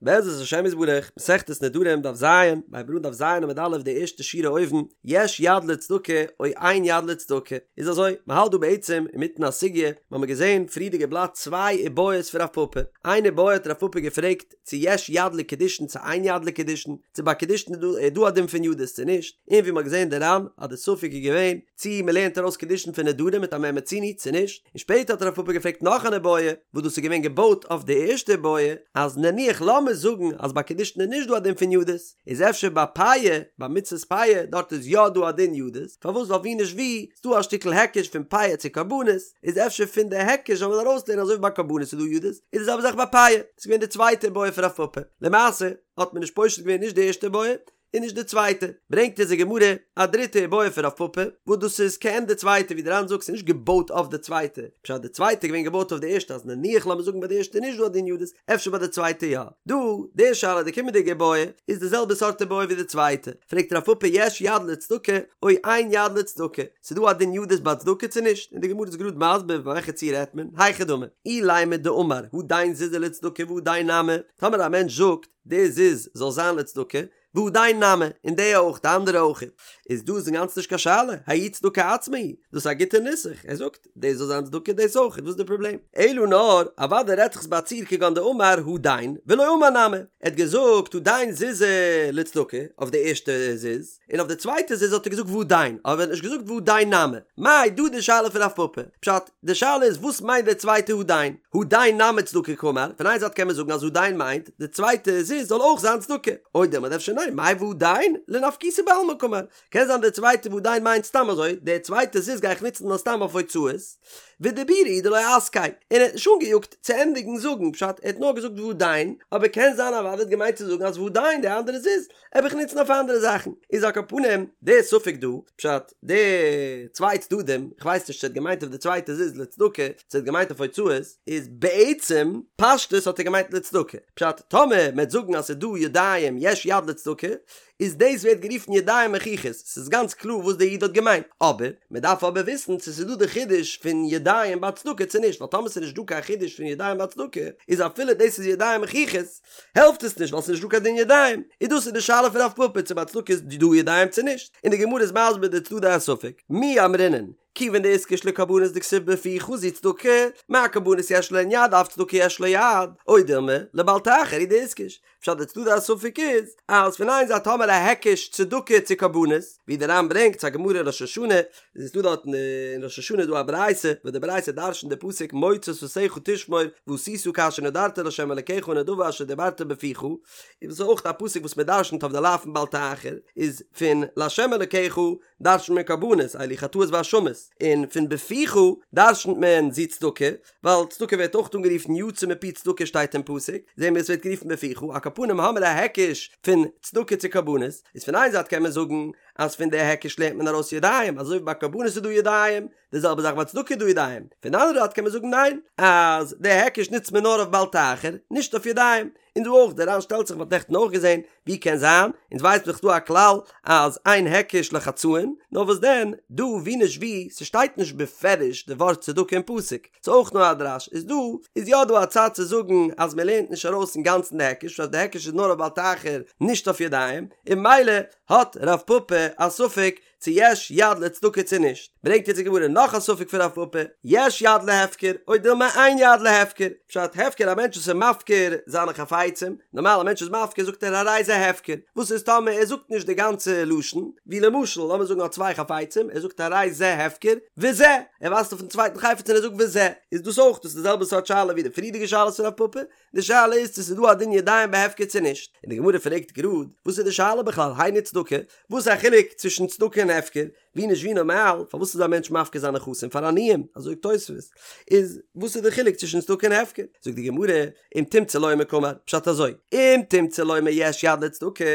בעזרת השם יתברך, מסכת נדרים דף ז, מ'הייבט אן דף ז עמוד א' די ערשטע שורה אויבן, יש יד לצדקה או אין יד לצדקה, איז אזוי, מען האלט דא בעצם אינמיטן א סוגיא, מיר האבן געזען פריערדיגע בלאט צוויי איבעיות פון רב פפא, איין איבעיא האט רב פפא געפרעגט צו יש יד לקידושין צו אין יד לקידושין, צו ביי קידושין איז דא א דין פון ידות צו נישט, און ווי מען האט געזען די ר"ן אז די ספק איז געווען צו מען לערנט ארויס קידושין פון נדרים מיט א מה מצינו צו נישט, און שפעטער האט רב פפא געפרעגט נאך אן איבעיא, וואס דאס איז געווען געבויט אויף די ערשטע איבעיא, אז נניח לאמיר זאגן אז ביי קידושין איז נישט דא א דין פון ידות, איז אפשר ביי פאה, ביי מצות פאה, דארט איז יא דא א דין ידות, פארוואס ווייל ווי נישט ווי, איז דא א שטיקל היקש פון פאה צו קרבנות, איז אפשר פון די היקש זאל מען ארויסלערנען אזוי ווי ביי קרבנות איז דא ידות, איז די זעלבע זאך ביי פאה, דאס איז געווען די צווייטע איבעיא פון רב פפא, למעשה האט מען נישט פושט געווען נישט די ערשטע איבעיא, און נישט די צווייטע, ברענגט אונז די גמרא א דריטע איבעיא פון רב פפא, וואס דאס איז כעין די צווייטע, ווי די ר"ן זאגט ס'איז נישט געבויט אויף די צווייטע, פשט די צווייטע איז געווען געבויט אויף די ערשטע אז נניח לאמיר זאגן ביי די ערשטע איז נישט דא א דין ידות, אפשר ביי די צווייטע יא. דא, די שאלה, די קומענדיגע איבעיא, איז די זעלבע סארט איבעיא ווי די צווייטע, פרעגט רב פפא יש יד לצדקה או אין יד לצדקה, ס'איז דא א דין ידות ביי צדקה צו נישט, און די גמרא איז גראד מסביר ביי וועלכע ציור רעדט מען, היכי דמי, אילימא דאמר הדין זוזא לצדקה והדין נמי, טאמער א מענטש זאגט, די זוז זאל זיין לצדקה, והדין נמי, און די אויך, די אנדערע אויך, איז דא איז אינגאנצן נישט קיין שאלה, ההיא צדקה עצמה היא, דאס איז א גוטע נוסח, ער זאגט, דאס זאל זיין צדקה דאס אויך, וואס איז די פראבלעם? אלא נאר, אוודאי רעדט זיך עס ביי א ציור כגון דאמר הדין, ולא אמר נמי, ער האט געזאגט הדין זוזא לצדקה, אויף די ערשטע זוז, און אויף די צווייטע זוז האט ער געזאגט והדין, אבער ער האט נישט געזאגט והדין נמי. מאי דא די שאלה פון רב פפא? פשט, די שאלה איז וואס מיינט די צווייטע הדין? הדין נמי צדקה קאמר, פון איין זייט קען מען זאגן אז הדין מיינט די צווייטע זוז זאל אויך זיין צדקה, או דילמא אדער אפשר ניין, מאי והדין לנפקותא בעלמא קאמר, קען זיין די צווייטע והדין מיינט סתם אזוי, די צווייטע זוז גיי איך נוצן נאר סתם אויף הוצאות, ודיבורא הוא דלא אסקיה, און ער האט נישט אנגעיאגט צו ענדיגן זאגן, פשט, ער האט נאר געזאגט והדין, אבער קען זיין אוודאי האט געמיינט צו זאגן אז והדין די אנדערע זוז וועל איך נוצן אויף אנדערע זאכן, איז על כל פנים די ספק דא, פשט, די צוויי צדדים, איך ווייס נישט צו ער האט געמיינט אויף די צווייטע זוז לצדקה, צו ער האט געמיינט אויף הוצאות, איז בעצם פשטות האט ער געמיינט לצדקה, פשט, טאמער מען וועט זאגן אז ס'איז דא ידיים יש יד לצדקה, איז דאס ווערט גערופן ידיים מוכיחות, ס'איז גאנץ קלאר וואס דער איד האט געמיינט, אבער, מען דארף אבער וויסן צו ס'איז דא די חידוש פון ידיים ביי צדקה צו נישט, ווייל טאמער ס'איז נישט דא קיין חידוש פון ידיים ביי צדקה, איז אפילו דאס איז ידיים מוכיחות, העלפט עס נישט ווייל ס'איז נישט דא קיין דין ידיים, און דאס איז די שאלה פון רב פפא צו ביי צדקה איז דא ידיים צו נישט, און די גמרא איז מסביר די צדדי הספק, מי אמרינן, כיוון דאיתקש לקרבנות דכתיב בפיך זו צדקה, מה קרבנות יש להן יד אף צדקה יש לה יד, או דילמא, לבל תאחר הוא דאיתקש, פשט די צדדי הספק איז, אז פון איין זייט האמער א היקש צדקה צו קרבנות, ווי די ר"ן ברענגט ס'א גמרא אין ראש השנה, איז דא דארט אין ראש השנה איז דא א ברייתא וואס די ברייתא דרש'נט די פסוק מוצא שפתיך תשמור ועשית כאשר נדרת לה' אלקיך הנדבה אשר דברת בפיך, און דאס איז אויך א פסוק וואס מען דרש'נט אויף די לאו פון בל תאחר, איז פון לה' אלקיך דרש'נט מען קרבנות אלו חטאות ואשמות, און פון בפיך דרש'נט מען זו צדקה, ווייל צדקה ווערט אויך אנגערופן יצא מפי צדקה שטייט אין פסוק, זעהן מיר עס ווערט גערופן בפיך, על כל פנים האמיר א היקש פון צדקה צו קרבנות, איז פון איין זייט קען מען זאגן אז פון די היקש לערנט מען ארויס ידיים, אזוי ווי ביי קרבנות איז דא ידיים, די זעלבע זאך ביי צדקה איז דא ידיים, פון די אנדערע זייט קען מען זאגן ניין, אז די היקש נוצט מען נאר אויף בל תאחר, נישט אויף ידיים, און דא אויך, דער ר"ן שטעלט זיך, מ'האט נעכטן אויך געזען, ווי קען זיין, אונז ווייסט דאך דא א כלל אז אין היקש לחצאין, נאר וואס דען, דא ווי נישט ווי, ס'שטייט נישט בפירוש די ווארט צדקה אין פסוק, ס'איז אויך נאר א דרש, איז דא איז יא דא א צד צו זאגן אז מ'לערנט נישט ארויס אינגאנצן די היקש, אז די היקש איז נאר אויף בל תאחר נישט אויף ידיים, און ממילא האט רב פפא א ספק צו יש יד לצדקה צו נישט, ברענגט יעצט די גמרא נאך א ספק פון רב פפא, יש יד להפקר או דילמא אין יד להפקר, פשט הפקר א מענטש וואס איז מפקיר זיינע חפצים, נארמאל א מענטש איז מפקיר זאגט ער הרי זה הפקר, וואס איז טאמער ער זאגט נישט די גאנצע לשון, ווי למשל לאמיר זאגן ער האט צוויי חפצים, ער זאגט הרי זה הפקר וזה, ער ווייזט אויפן צווייטן חפץ און ער זאגט וזה, איז דאס אויך דאס איז די זעלבע סארט שאלה ווי די פריערדיגע שאלות פון רב פפא, די שאלה איז צו ס'איז דא א דין ידיים בהפקר צו נישט, און די גמרא פרעגט גראד, וואס איז די שאלה בכלל, היינו צדקה, וואס איז א חילוק צווישן צדקה און הפקר, ווי נישט ווי נארמאל, פארוואס איז א מענטש מפקיר זיינע נכסים פאר עניים, אזוי זאגט תוספות, איז וואס איז די חילוק צווישן צדקה און הפקר, זאגט די גמרא, אם תמצא לומר קאמר, פשט אזוי, אם תמצא לומר יש יד לצדקה,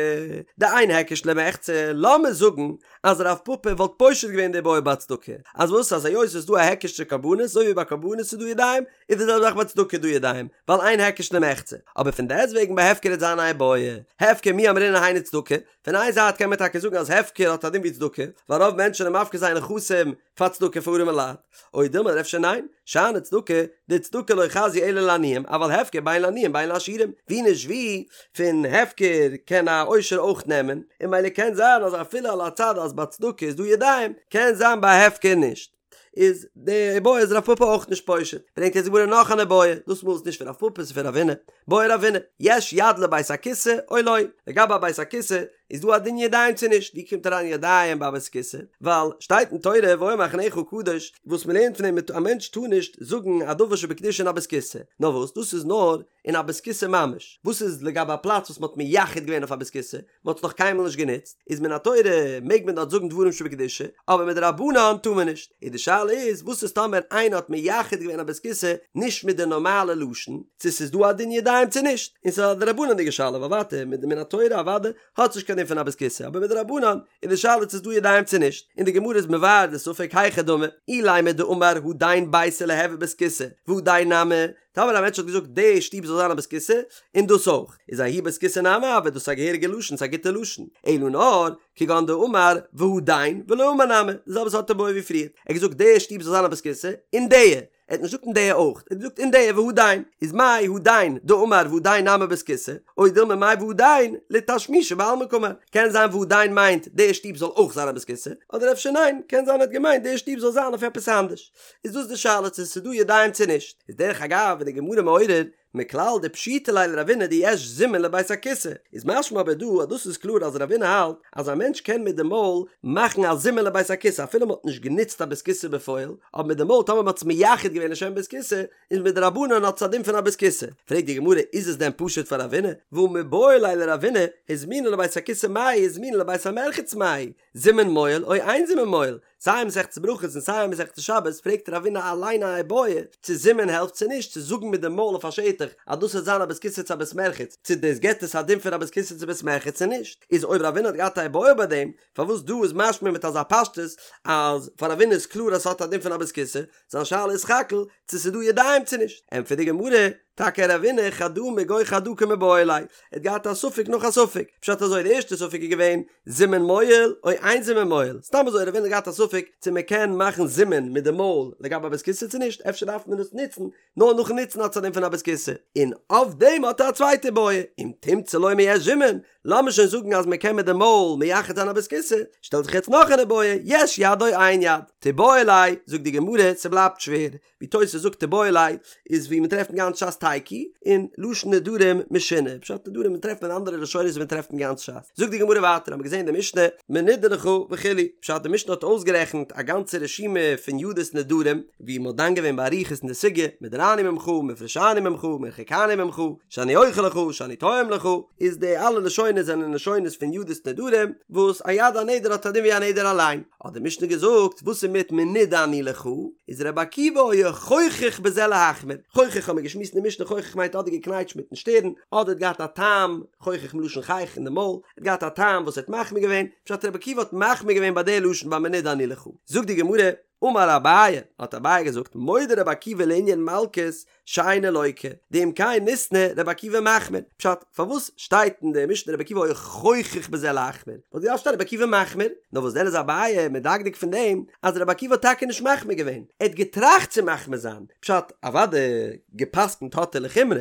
דאין היקש למחצה, לאמיר זאגן אז רב פפא וואלט פושט געווען די בעיא ביי צדקה, אז וואס אז היות ס'איז דא א היקש צו קרבנות, אזוי ווי ביי קרבנות איז דא ידיים, איז די זעלבע זאך ביי צדקה דא ידיים, ווייל אין היקש למחצה. אבער פון דעסטוועגן ביי הפקר וועט זיין א איבעיא, הפקר מי אמרינן היינו צדקה, פון איין זייט קען מען טאקע זאגן אז הפקר האט א דין ווי צדקה, ווייל רוב מענטשן. מענטשן זענען מפקיר זייער נכסים פאר צדקה פאר ארימע לייט, או דילמא אפשר ניין, שאני צדקה, דצדקה לא חזיא אלא לעניים, אבל הפקר בין לעניים בין לעשירים, ווי נישט ווי, פון הפקר קען א עושר אויך נעמען, און ממילא קען זיין אז אפילו על הצד אז ביי צדקה איז דא ידיים, קען זיין ביי הפקר נישט. איז די איבעיא איז רב פפא אויך נישט פושט, ברענגט יעצט די גמרא נאך אן איבעיא, דאס מאל איז נישט פון רב פפא ס'איז פון רבינא, בעי רבינא, יש יד לבית הכסא או לא, לגבי א בית הכסא איז דא א דין ידיים צו נישט, ווי קומט אריין ידיים ביי א בית הכסא, ווייל שטייט אין תורה והיה מחניך קדוש, וואס מ'לערנט פון דעם א מענטש טאר נישט זאגן א דבר שבקדושה אין א בית כסא, נאר וואס דאס איז נאר אין א בית כסא ממש, וואס איז לגבי א פלאץ וואס מ'האט מייחד געווען אויף א בית כסא, מ'האט עס נאך קיינמאל נישט גענוצט, איז מן התורה מעג מען דארט זאגן דברים שבקדושה, אבער מדרבנן טאר מען נישט. איז די שאלה איז, וואס איז טאמער איינער האט מייחד געווען א בית כסא נישט מיט די נארמאלע לשון, צו ס'איז דא א דין ידיים צו נישט, און ס'איז א דרבנן'דיגע שאלה, ווייל ווייטער מיט מן התורה אוודאי האט עס נישט קיין דין פון א בית כסא, אבער מדרבנן איז די שאלה צו ס'איז דא ידיים צו נישט, און די גמרא איז מבאר די ספק היכי דמי, אילימא דאמר הדין ביתא ליהוי בית כסא, והדין נמי, טאמער א מענטש האט געזאגט די שטוב זאל זיין א בית כסא, און דאס אויך, איז ההוא בית כסא נמי הוי, דאס איז א געהעריגע לשון, ס'איז א גוטע לשון, אלא נאר, כגון דאמר והדין ולא אמר נמי, די זעלבע סארט איבעיא ווי פריער, ער האט געזאגט די שטוב זאל זיין א בית כסא, און די, ער האט נישט געזאגט און די אויך, ער האט געזאגט און די והדין, איז מאי הדין דאמר והדין נמי בית כסא, או דילמא מאי והדין לתשמישא בעלמא קאמר, קען זיין והדין מיינט די שטוב זאל אויך זיין א בית כסא, אדער אפשר ניין, קען זיין ער האט געמיינט די שטוב זאל זיין אויף עפעס אנדערש. איז דאס די שאלה צו ס'איז דא ידיים צו נישט, איז דרך אגב איז די גמרא מעורר מכלל דפשיטא ליה לרבינא דיש זימון לבית הכסא, איז משמע אבער דא אז דאס איז קלאר אז רבינא האלט אז א מענטש קען מיט די מויל מאכן א זימון לבית הכסא אפילו מ'האט נישט גענוצט א בית כסא בפועל, אבער מיט די מויל טאמער מ'האט עס מייחד געווען לשם בית כסא איז מדרבנן האט עס א דין פון א בית כסא. פרעגט די גמרא איז עס דען פשוט פאר רבינא? והא מיבעי ליה לרבינא הזמינו לבית הכסא מהו הזמינו לבית המרחץ מהו זימון מועיל או אין זימון מועיל, סיי אין מסכת ברכות און סיי אין מסכת שבת פרעגט רבינא אליין א איבעיא צו זימון העלפט צו נישט צו זאגן מיט די מויל אויף א שטח אז דאס וועט זיין א בית כסא צו א בית מרחץ צו דאס געבט עס א דין פון א בית כסא צו בית מרחץ צו נישט איז אויב רבינא האט געהאט א איבעיא ביי דעם פארוואס דא איז משמע מיט אזא פשטות אז פאר רבינא איז קלאר אז ס'האט א דין פון א בית כסא זיין שאלה איז סך הכל צו ס'איז דא ידיים צו נישט ענטפערט די גמרא טאקע רבינא חדא מגו חדא קמיבעיא ליה, ער האט געהאט א ספק נאך א ספק, פשט אזוי די ערשטע ספק איז געווען זימון מועיל או אין זימון מועיל, סתם אזוי רבינא האט געהאט א ספק צו מען קען מאכן זימון מיט די מויל לגבי א בית כסא צו נישט, אפשר דארף מען עס נוצן, נאר נאכן נוצן האט עס א דין פון א בית כסא, און אויף דעם האט ער א צווייטע איבעיא, אם תמצא לומר יש זימון, לאמיר שוין זאגן אז מען קען מיט די מויל מייחד זיין א בית כסא, שטעלט זיך יעצט נאך אן איבעיא, יש יד או אין יד, תיבעי ליה, זאגט די גמרא, ס'בלייבט שווער, ווי תוס' זאגט תיבעי ליה איז ווי מען טרעפט אין גאנץ ש"ס תיקו און לשון נדרים משונה פשט נדרים מען טרעפט אין אנדערע לשונות ווי מען טרעפט אין גאנץ ש"ס זאגט די גמרא ווייטער האבן מיר געזען די משנה מנודה לך וכו' פשט די משנה האט אויסגערעכנט א גאנצע רשימה פון ידות נדרים ווי מען האט דן געווען באריכות אין די סוגיא מודרני ממך מופרשני ממך מרוחקני ממך שאני אוכל לך שאני טועם לך איז די אלע לשונות זענען לשונות פון ידות נדרים וואס א יד הנדר האט א דין ווי א נדר אליין האט די משנה געזאגט, וואס איז מיט מנודה אני לך? איז רבי עקיבא היה חוכך בזה להחמיר, חוכך האמיר געשמועסט אין די משנה חוכך מיינט אדער געקנייטשט מיטן שטערן, אדער האט געהאט א טעם, חוכך מלשון חיך אין די מויל, האט געהאט א טעם וואס ער האט מחמיר געווען, פשט רבי עקיבא האט מחמיר געווען ביי די לשון ביי מנודה אני לך. זאגט די גמרא, אמר אביי, האט אביי געזאגט, מודה רבי עקיבא לענין מלקות, שאינו לוקה, דאם כן ליתני רבי עקיבא מחמיר, פשט, פארוואס שטייט אין די משנה רבי עקיבא היה חוכך בזה להחמיר? וואלט געדארפט שטיין רבי עקיבא מחמיר, נאר וואס דען איז אביי מדקדק פון דעם אז רבי עקיבא האט טאקע נישט מחמיר געווען, ער האט געטראכט צו מחמיר זיין, פשט, אוודאי גע'פסק'נט האט ער לחומרא,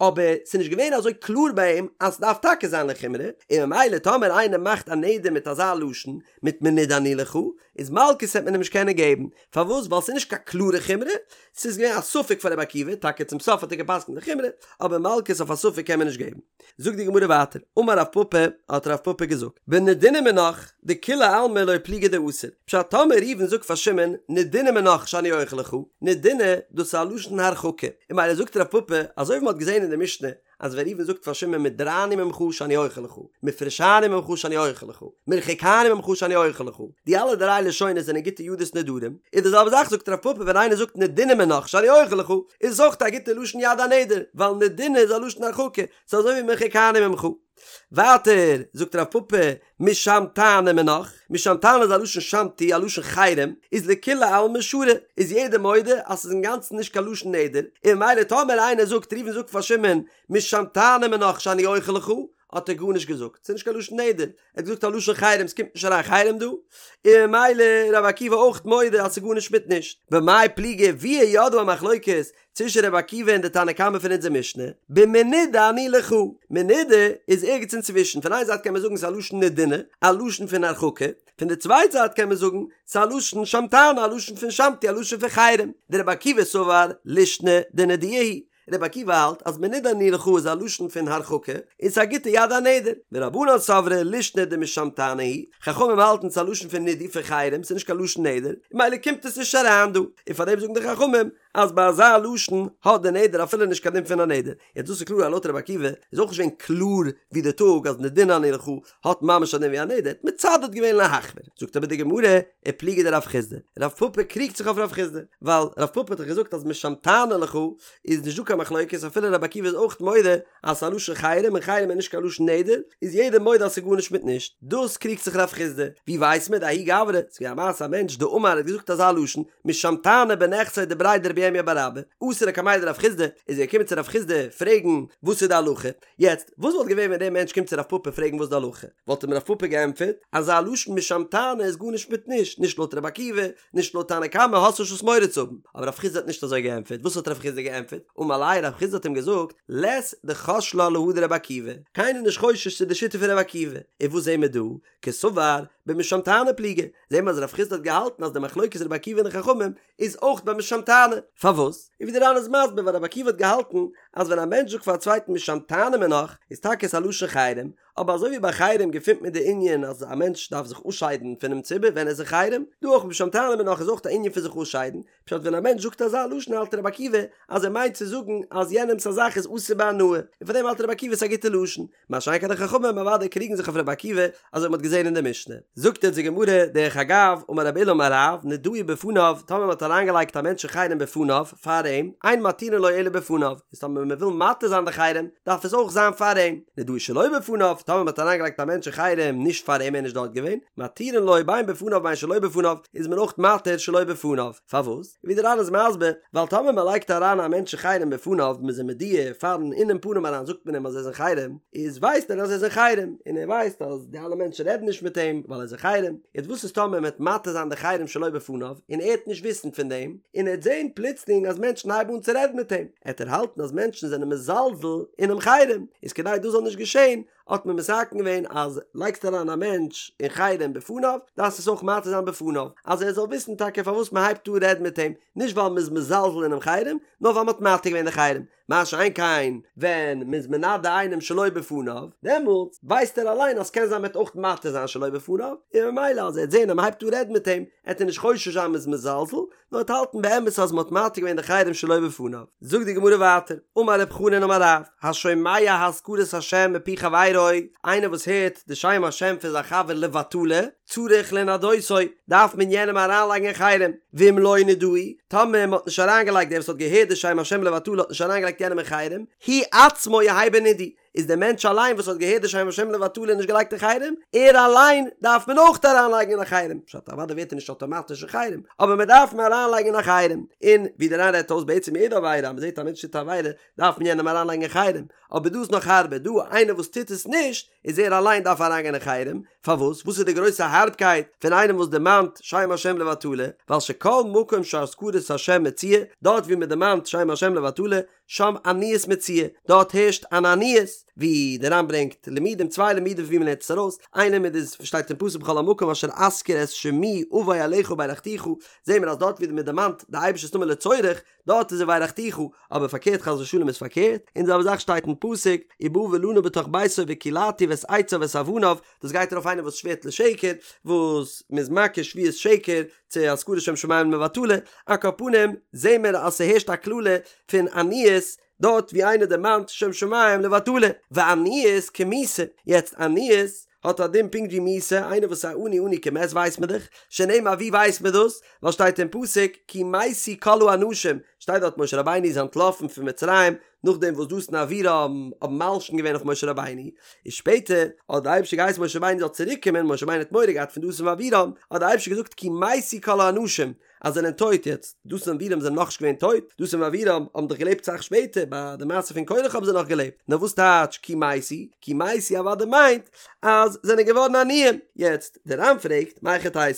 אבער ס'איז נישט געווען אזוי קלאר ביי אים אז ס'דארף טאקע זיין לחומרא, און ממילא טאמער איינער מאכט א נדר מיט אזא לשון, מיט מנודה אני לך, איז מלקות וועט מען אים נישט קענען געבן, פארוואס? ווייל ס'איז נישט קיין קלארע חומרא, ס'איז געווען א ספק פאר רבי עקיבא, טאקע צום סוף האט ער גע'פסק'נט לחומרא, אבער מלקות אויף א ספק קען מען נישט געבן. זאגט די גמרא ווייטער, אמר רב פפא, האט רב פפא געזאגט, בנדינא מינך, דכולי עלמא לא פליגי דאסור, פשט טאמער ראובן זאגט פאר שמעון, נדינא מינך שאני אוכל לך, נדינא, דאס איז א לשון הרחקה, און ממילא זאגט רב פפא, אזוי ווי מ'האט געזען אין די משנה, אז ווען ראובן זאגט פאר שמעון מודרני ממך שאני אוכל לך, מופרשני ממך שאני אוכל לך, מרוחקני ממך שאני אוכל לך, די אלע דריי לשונות זענען גוטע ידות נדרים, איז די זעלבע זאך זאגט רב פפא ווען איינער זאגט נדינא מינך שאני אוכל לך, איז עס אויך א גוטע לשון יד הנדר, ווייל נדינא איז א לשון הרחקה, ס'איז אזוי ווי מרוחקני ממך. ווייטער זאגט רב פפא משמתני מינך, משמתני איז א לשון שמתו א לשון חרם, איז לכולי עלמא שרי, איז יעדער מודה אז ס'איז אינגאנצן נישט קיין לשון נדר, און ממילא טאמער איינער זאגט ראובן זאגט פאר שמעון משמתני מינך שאני אוכל לך, האט ער גארנישט געזאגט, ס'איז נישט קיין לשון נדר, ער האט געזאגט א לשון חרם, ס'קומט נישט אריין חרם דא, און ממילא רבי עקיבא אויך מודה אז ס'איז גארנישט מיט נישט. במאי פליגי ווי איז יא דא א מחלוקת צווישן רבי עקיבא און די תנא קמא פון אונזער משנה, במנודה אני לך, מנודה איז ערגעץ אינצווישן, פון איין זייט קען מען זאגן ס'איז א לשון נדונא, א לשון פון הרחקה, פון די צווייטע זייט קען מען זאגן ס'איז א לשון שמתנא, א לשון פון שמתו, א לשון פון חרם, דרבי עקיבא סבר לישנא דנידויה היא, רבי עקיבא האלט אז מנודה אני לך איז א לשון פון הרחקה, און ס'איז א גוטע יד הנדר, ורבנן סברי לישנא דמשמתנא היא, חכמים האלטן ס'איז א לשון פון נידוי פון חרם, ס'איז נישט קיין לשון נדר, און ממילא קומט עס נישט אריין דא, און פארדעם זאגן די חכמים אז ביי אזא לשון האט די נדר אפילו נישט קיין דין פון א נדר. יעצט דאס איז קלאר אז לויט רבי עקיבא איז אויך נישט געווען קלאר ווי די טאג אז נדונא אני לך האט ממש א דין ווי א נדר, האט מצדד געווען להחמיר. זאגט אבער די גמרא, ופליגא דרב חסדא, רב פפא קריגט זיך אויף רב חסדא, ווייל רב פפא האט דאך געזאגט אז משמתנא לך איז נישט דא קיין מחלוקת אפילו רבי עקיבא איז אויך מודה אז ס'איז א לשון חרם און חרם איז נישט קיין לשון נדר, איז יעדער מודה אז ס'איז גארנישט מיט נישט. דאס קריגט זיך רב חסדא. ווי ווייסט מען דההוא גברא, ס'איז געווען א מעשה א מענטש דאמר האט געזאגט אזא לשון, משמתנא בנכסיה דבריה דרב ירמיה בר אבא, אתא לקמיה דרב חסדא, איז ער געקומען צו רב חסדא פרעגן וואס איז די הלכה. יעצט, וואס וואלט געווען ווען דער מענטש קומט צו רב פפא פרעגן וואס איז די הלכה? וואלט אים רב פפא געענטפערט, אזא לשון משמתנא איז גארנישט מיט נישט, נישט לויט רבי עקיבא, נישט לויט תנא קמא האסט נישט וואס מורא צו האבן. אבער רב חסדא האט נישט אזוי געענטפערט, וואס האט רב חסדא געענטפערט? אמר ליה, רב חסדא האט אים געזאגט, לית דחש לה להא דרבי עקיבא, קיינער איז נישט חושש צו די שיטה פון רבי עקיבא, און וואס זעהן מיר דא? קסבר במשמתנא פליגי, זעהן מיר אז רב חסדא האט געהאלטן אז די מחלוקת רבי עקיבא און די חכמים איז אויך ביי משמתנא, פארוואס? און ווי די ר"ן איז מסביר ווייל רבי עקיבא האט געהאלטן אז ווען א מענטש זאגט פאר א צווייטן משמתנא מינך איז טאקע עס א לשון חרם, אבער אזוי ווי ביי חרם געפינט מען די ענין אז א מענטש דארף זיך אפשיידן פונעם ציבור ווען ער איז אין חרם, דא אויך משמתנא מינך איז אויך א ענין פון זיך אפשיידן, פשט ווען א מענטש זאגט אזא לשון האלט רבי עקיבא אז ער מיינט צו זאגן אז יענעמס א זאך איז אסור בהנאה, און פאר דעם האלט רבי עקיבא ס'איז א גוטע לשון, מה שאין כן די חכמים אוודאי קריגן זיך אויף רבי עקיבא אזוי ווי מ'האט געזען אין די משנה. זאגט אונז די גמרא, דרך אגב, אמר רב עולא אמר רב, נדאו בפניו, טאמער מ'האט אריינגעלייגט א מענטש אין חרם בפניו, פאר אים, אין מתירין לו אלא בפניו, איז טאמער מ'וויל מתיר זיין די חרם, דארף עס אויך זיין פאר אים, נדאו שלא בפניו, טאמער מ'האט אריינגעלייגט א מענטש אין חרם נישט פאר אים ער איז נישט דארט געווען, מתירין לו בין בפניו בין שלא בפניו, איז מען אויך מתיר שלא בפניו. פארוואס? ווי דער ר"ן איז מסביר, ווייל טאמער מען לייגט אריין א מענטש אין חרם בפניו, מען איז אים מודיע פארן אינעם פנים אריין זאגט מען אים אז ער איז אין חרם, איז ווייסט ער אז ער איז אין חרם, און ער ווייסט אז די אלע מענטשן רעדן נישט מיט אים ווייל ער איז אין חרם, יעצט וואס איז טאמער מען וועט מתיר זיין די חרם שלא בפניו, און ער וועט נישט וויסן פון דעם, און ער וועט זען פלוצלינג אז מענטשן הייבן אן צו רעדן מיט אים, עט ער האלטן אז מענטשן זענען מזלזל אינעם חרם, איז כדי דאס זאל נישט געשען, האט מען מתקן געווען אז לייגסט אריין א מענטש אין חרם בפניו דארפסט עס אויך מתיר זיין בפניו אז ער זאל וויסן טאקע פארוואס מען הייבט אן רעדן מיט אים, נישט ווייל מען איז מזלזל אינעם חרם, נאר ווייל מען האט מתיר געווען די חרם, מה שאין כן ווען מען איז מנדה איינעם שלא בפניו, דעמאלטס ווייסט ער אליין אז ס'קען זיין מען וועט אויך מתיר זיין שלא בפניו, און ממילא אז ער וועט זען אז מען הייבט אן רעדן מיט אים, עט ער נישט חושש זיין מען איז מזלזל, נאר עט האלטן באמת אז מ'האט מתיר געווען די חרם שלא בפניו. זאגט די גמרא ווייטער, אמר רב חנין אמר רב, השומע הזכרת השם מפי חברו, איינער וואס הערט די שם השם פון זיין חבר לבטלה, צריך לנדותו, דארף מען יענעם אריינלייגן אין חרם, ואם לא נדהו, טאמער מ'האט נישט אריינגעלייגט דער וואס האט געהערט די שם השם לבטלה האט נישט אריינגעלייגט יענעם אין חרם, הוא עצמו יהא בנידוי, איז דער מענטש אליין וואס האט געהערט די שם השם לבטלה און נישט געלייגט אין חרם, ער אליין דארף מען אויך אריינלייגן אין א חרם, פשט אוודאי ווערט ער נישט אטאמאטיש אין חרם, אבער מען דארף אים אריינלייגן אין א חרם, און ווי דער ר"ן רעדט אויס בעצם יעדע עבירה אז מען זעט א מענטש טוט א עבירה דארף מען יענעם אריינלייגן אין חרם, אבער דא איז נאך הארבער, דא איינער וואס טוט עס נישט איז ער אליין דארף אריינגיין אין חרם, פארוואס? וואס איז די גרויסע הארבקייט פון איינעם וואס דערמאנט שם השם לבטלה, ווייל שכל מקום שהזכרת השם מצויה, דארט ווי מען דערמאנט שם השם לבטלה, שם עניות מצויה, דארט הערשט אן עניות, ווי דער ר"ן ברענגט לימודים, צוויי לימודים ווי מען לערנט עס ארויס, איין לימוד איז שטייט אין פסוק בכל המקום אשר אזכיר את שמי אבוא אליך וברכתיך, זעהן מיר אז דארט ווי מען דערמאנט די אייבערשטער'ס נאמען לצורך, דארט איז וברכתיך, אבער פארקערט חס ושלום איז פארקערט, און די זעלבע זאך שטייט אין פסוק ובא ולנה בתוך ביתו וקלעתיו את עציו ואת אבניו, דאס גייט ארויף איינער וואס שווערט לשקר, וואס מען איז מקיש שבועת שקר צו הזכרת שם שמים לבטלה, על כל פנים זעהן מיר אז ס'הערשט א קללה פון עניות דארט ווי איינער דערמאנט שם שמים לבטלה, ועניות כמיתה, יעצט עניות האט א דין פונקט ווי מיתה, איינער וואס איז א עני עני כמת ווייסט מען דאך, שנאמר ווי ווייסט מען דאס? ווייל שטייט אין פסוק כי מתו כל האנשים, שטייט דארט משה רבינו איז אנטלאפן פון מצרים נאכדעם וואס דתן ואבירם האבן מלשין געווען אויף משה רבינו, איז שפעטער האט די אייבערשטער געהייסן משה רבינו זאל צוריק קומען, משה רבינו האט מורא געהאט פון דתן ואבירם, האט די אייבערשטער געזאגט כי מתו כל האנשים, אז זענען טויט יעצט, דתן ואבירם זענען נאכנישט געווען טויט, דתן ואבירם האבן דאך געלעבט סאך שפעטער, ביי די מעשה פון קרח האבן זיי נאך געלעבט, נאר וואס טייטש כי מתו? כי מתו אוודאי מיינט אז זענען געווארן עניים, יעצט דער ר"ן פרעגט, מהיכי תיתי,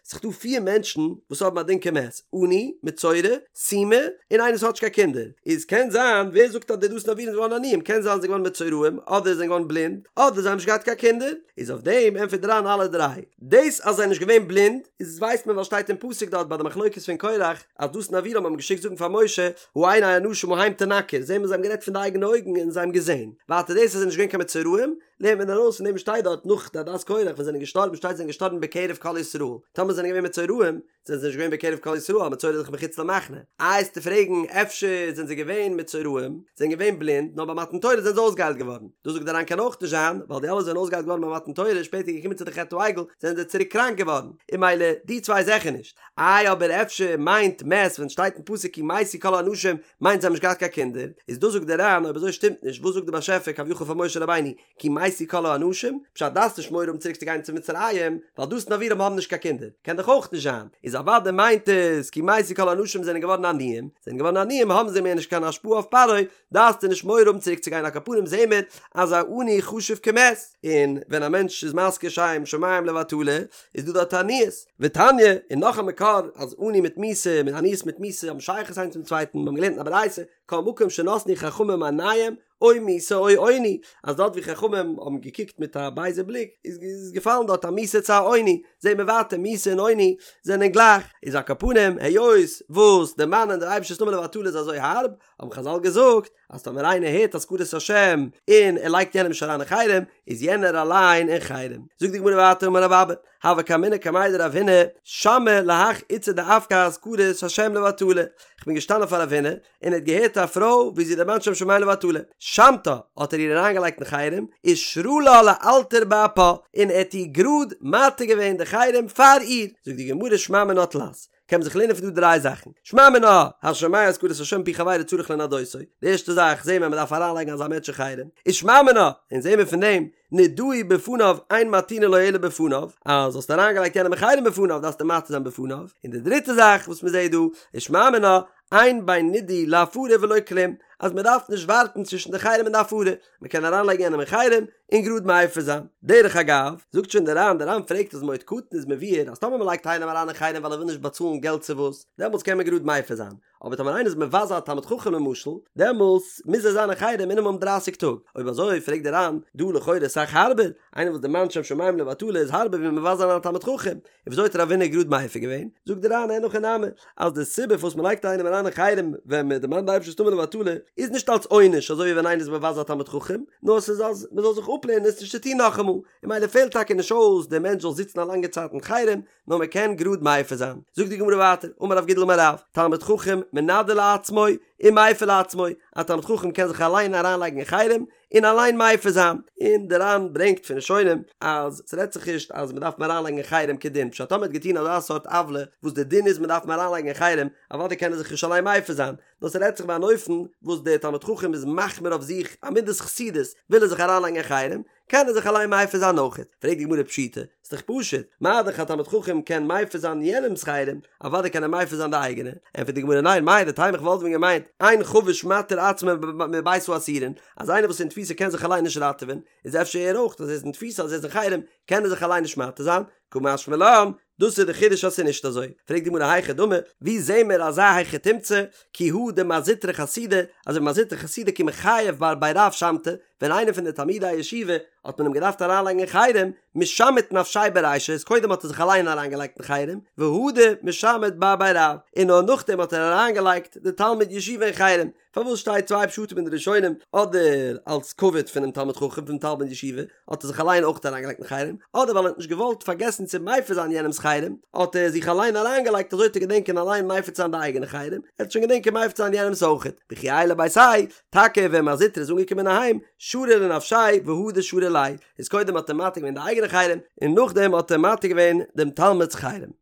ס'איז דא פיר מענטשן וואס האבן א דין כמת, עני, מצורע, סומא, און איינער וואס האט נישט קיין קינדער, איז קען זיין, ווער זאגט אז די דתן ואבירם זענען געווארן עניים, קען זיין זיי זענען געווארן מצורעים, אדער זענען געווארן בלינד, אדער זיי האבן נישט געהאט קיין קינדער, איז אויף דעם ענטפערט דער ר"ן אלע דריי. דאס אז זיי זענען נישט געווען בלינד, איז ווייסט מען ווייל שטייט אין פסוק דארט ביי די מחלוקת פון קורח, אז דתן ואבירם האבן געשיקט זאגן פאר משה, העיני האנשים ההם תנקר, זעהן מיר זיי האבן גערעדט פון די אייגענע אויגן און זיי האבן געזעהן. ווייטער דאס אז זיי זענען נישט געווען קיין מצורעים, לערנט מען ארויס פון דעם שטייט דארט נאך די עדת קורח ווען זיי זענען געשטארבן שטייט זיי זענען געשטארבן בקרב כל ישראל, טאמער זענען געווען מצורעים, זענען זיי נישט געווען בקרב כל ישראל, א מצורע איז דאך מחוץ למחנה. איי וועסטו פרעגן אפשר זענען זיי געווען מצורעים, זענען געווען בלינד, נאר ביי מתן תורה זענען זיי אויסגעהיילט געווארן. דאס זאגט דער ר"ן קען אויך נישט זיין, ווייל די אלע זענען אויסגעהיילט געווארן ביי מתן תורה, שפעטער געקומען צו די חטא העגל, זענען זיי צוריק קראנק געווארן. און ממילא די צוויי זעכער נישט. איי אבער אפשר מיינט מת ווען שטייט אין פסוק כי מתו כל האנשים מיינט זיי האבן נישט געהאט קיין קינדער, איז דאס זאגט דער ר"ן אויב אזוי שטימט נישט וואס זאגט די באשעפער כביכול פאר משה רבינו כי מתו כל האנשים, פשט דארפסט נישט מורא האבן צוריק צו גיין צו מצרים ווייל דתן ואבירם האבן נישט קיין קינדער, קען דאך אויך נישט זיין, איז אוודאי מיינט עס כי מתו כל האנשים זענען געווארן עניים, זענען געווארן עניים האבן זיי מער נישט קיין השפעה אויף פרעה, דארפסטו נישט מורא האבן צוריק צו גיין על כל פנים זעהן מיר אז א עני חשוב כמת, און ווען א מענטש איז מזכיר שם שמים לבטלה איז דא דארט עניות, ותניא, און נאך א מקור אז עני מיט מיתה מיט עניות מיט מיתה האבן שייכות איינס צום צווייטן, מיר האבן געלערנט אין א ברייתא, כל מקום שנתנו חכמים עיניהם, או מיתה או עוני, אז דארט ווי חכמים האבן געקוקט מיט א בייזע בליק איז געפאלן דארט א מיתה צו א עוני, זעהן מיר ווייטער מיתה און עוני זענען גלייך, איז על כל פנים היות וואס דערמאנען דער אייבערשטער'ס נאמען לבטלה איז אזוי הארב, האבן חזל געזאגט אז טאמער איינער הערט הזכרת השם און ער לייגט יענעם נישט אריין אין חרם, איז יענער אליין אין חרם. זאגט די גמרא ווייטער אמר רב אבא, הוה קאימנא קמיה דרב הונא, שמעי להך איתתא דאפקה הזכרת השם לבטלה, כ'בין געשטאנען פאר רב הונא, און ער האט געהערט א פרוי ווי זי דערמאנט שם שמים לבטלה, שמתה, האט ער איר אריינגעלייגט אין חרם, שרא לה לאלתר באפה, און ער האט איר גראד מתיר געווען די חרם פאר איר, זאגט די גמרא שמע מינה תלת, קען מען זיך לערנען פון דא דריי זאכן, שמע מינה, השומע הזכרת השם מפי חבירו צריך לנדותו, די ערשטע זאך זעהן מיר אז מען דארף אריינלייגן אזא מענטש אין חרם, און שמע מינה, און זעהן מיר פון דעם, נידהו בפניו אין מתירין לו אלא בפניו, אז האסט אריינגעלייגט יענעם אין חרם בפניו דארפסטו מתיר זיין בפניו, און די דריטע זאך וואס מען זעהט דא, איז שמע מינה, אין בין נידוי להפרה ולא כלום, אז מען דארף נישט ווארטן צווישן די חרם און די הפרה, מען קען אריינלייגן יענעם אין חרם און גראד מפר זיין. דרך אגב, זאגט שוין דער ר"ן, דער ר"ן פרעגט אז מועד קטן איז מבואר אז טאמער מען לייגט איינעם אריין אין חרם ווייל ער וויל נישט באצאלן געלט צו וואס, דעמאלטס קען מען גראד מפר זיין, אבער טאמער איינער איז מבזה א תלמיד חכם למשל, דעמאלטס מוז ער זיין אין חרם מינימום דרייסיג טאג. אויב אזוי פרעגט דער ר"ן, דא לכאורה אסאך הארבער, איינער וואס דערמאנט שם שמים לבטלה איז הארבער ווי מבזה זיין א תלמיד חכם, און וויאזוי האט רב הונא גראד מפר געווען? זאגט דער ר"ן אין הכי נמי, אז די סיבה פארוואס מען לייגט איינעם אריין אין חרם ווען מען דערמאנט די אייבערשטער'ס נאמען לבטלה, איז נישט אלס עונש אזוי ווי ווען איינער איז מבזה א תלמיד חכם, נאר ס'איז אז מען זאל זיך אפלערנען עס נישט צו טון נאכאמאל, און ממילא פעלט טאקע נישט אויס דער מענטש זאל זיצן א לאנגע צייט אין חרם, נאר מען קען גראד מפר זיין. זאגט די גמרא ווייטער, אמר רב גידל אמר רב, תלמיד חכם מנדה לעצמו ומפר לעצמו, א תלמיד חכם קען זיך אליין אריינלייגן אין חרם, און אליין מפר זיין, און דער ר"ן ברענגט פון ראשונים אז ס'רעדט זיך נישט אז מ'דארף אים אריינלייגן אין חרם כדין, פשט טאמער האט געטון אזא סארט עוולה וואס די דין איז מ'דארף אים אריינלייגן אין חרם, אוודאי קען ער זיך נישט אליין מפר זיין, נאר ס'רעדט זיך ביי אן אופן וואס דער תלמיד חכם איז מחמיר אויף זיך א מידת חסידות וויל ער זיך אריינלייגן אין חרם, קען ער זיך אליין מפר זיין אויכעט, פרעגט די גמרא פשיטא, ס'איז דאך פשוט, מה דאך א תלמיד חכם קען מפר זיין יענעמ'ס חרם, אוודאי קען ער מפר זיין די אייגענע, ענטפערט די גמרא ניין, מהו דתימא איך וואלט ווען געמיינט, אין חבוש מתיר עצמו מבית האסורין, אז איינער וואס איז אין תפיסה קען זיך אליין נישט ראטעווען, איז אפשר ער אויך אז ער איז אין תפיסה אז ער איז אין חרם קען ער זיך אליין נישט מתיר זיין, קא משמע לן, דאס איז די חידוש אז ס'איז נישט אזוי. פרעגט די גמרא היכי דמי, ווי זעהן מיר אזא היכי תמצא, כי הא דמר זוטרא חסידא, אזוי ווי מר זוטרא חסידא כי מיחייב בר בי רב שמתיה, ווען איינער פון די תלמידי הישיבה האט מען אים געדארפט אריינלייגן אין חרם, משמט נפשיה ברישא, איז קודם האט ער זיך אליין אריינגעלייגט אין חרם, והדר משמט בר בי רב, און נאר נאכדעם האט ער אריינגעלייגט די תלמיד ישיבה אין חרם, פארוואס שטייט צוויי פשטים אין די ראשונים, אדער אלס כבוד פונעם תלמיד חכם פונעם תלמיד ישיבה האט ער זיך אליין אויך אריינגעלייגט אין חרם, אדער ווייל ער האט נישט געוואלט פארגעסן צו מפר זיין יענעמ'ס חרם, האט ער זיך אליין אריינגעלייגט אזוי צו געדענקען אליין מפר צו זיין די אייגענע חרם, ער וועט שוין געדענקען מפר צו זיין יענעמ'ס אויכעט. וכי עייל לביתיה, טאקע ווען מר זוטרא איז אנגעקומען אהיים, שרא לנפשיה והדר שרא ליה, איז קודם האט ער מתיר געווען די אייגענע חרם, און נאכדעם האט ער מתיר געווען דעם תלמיד'ס חרם.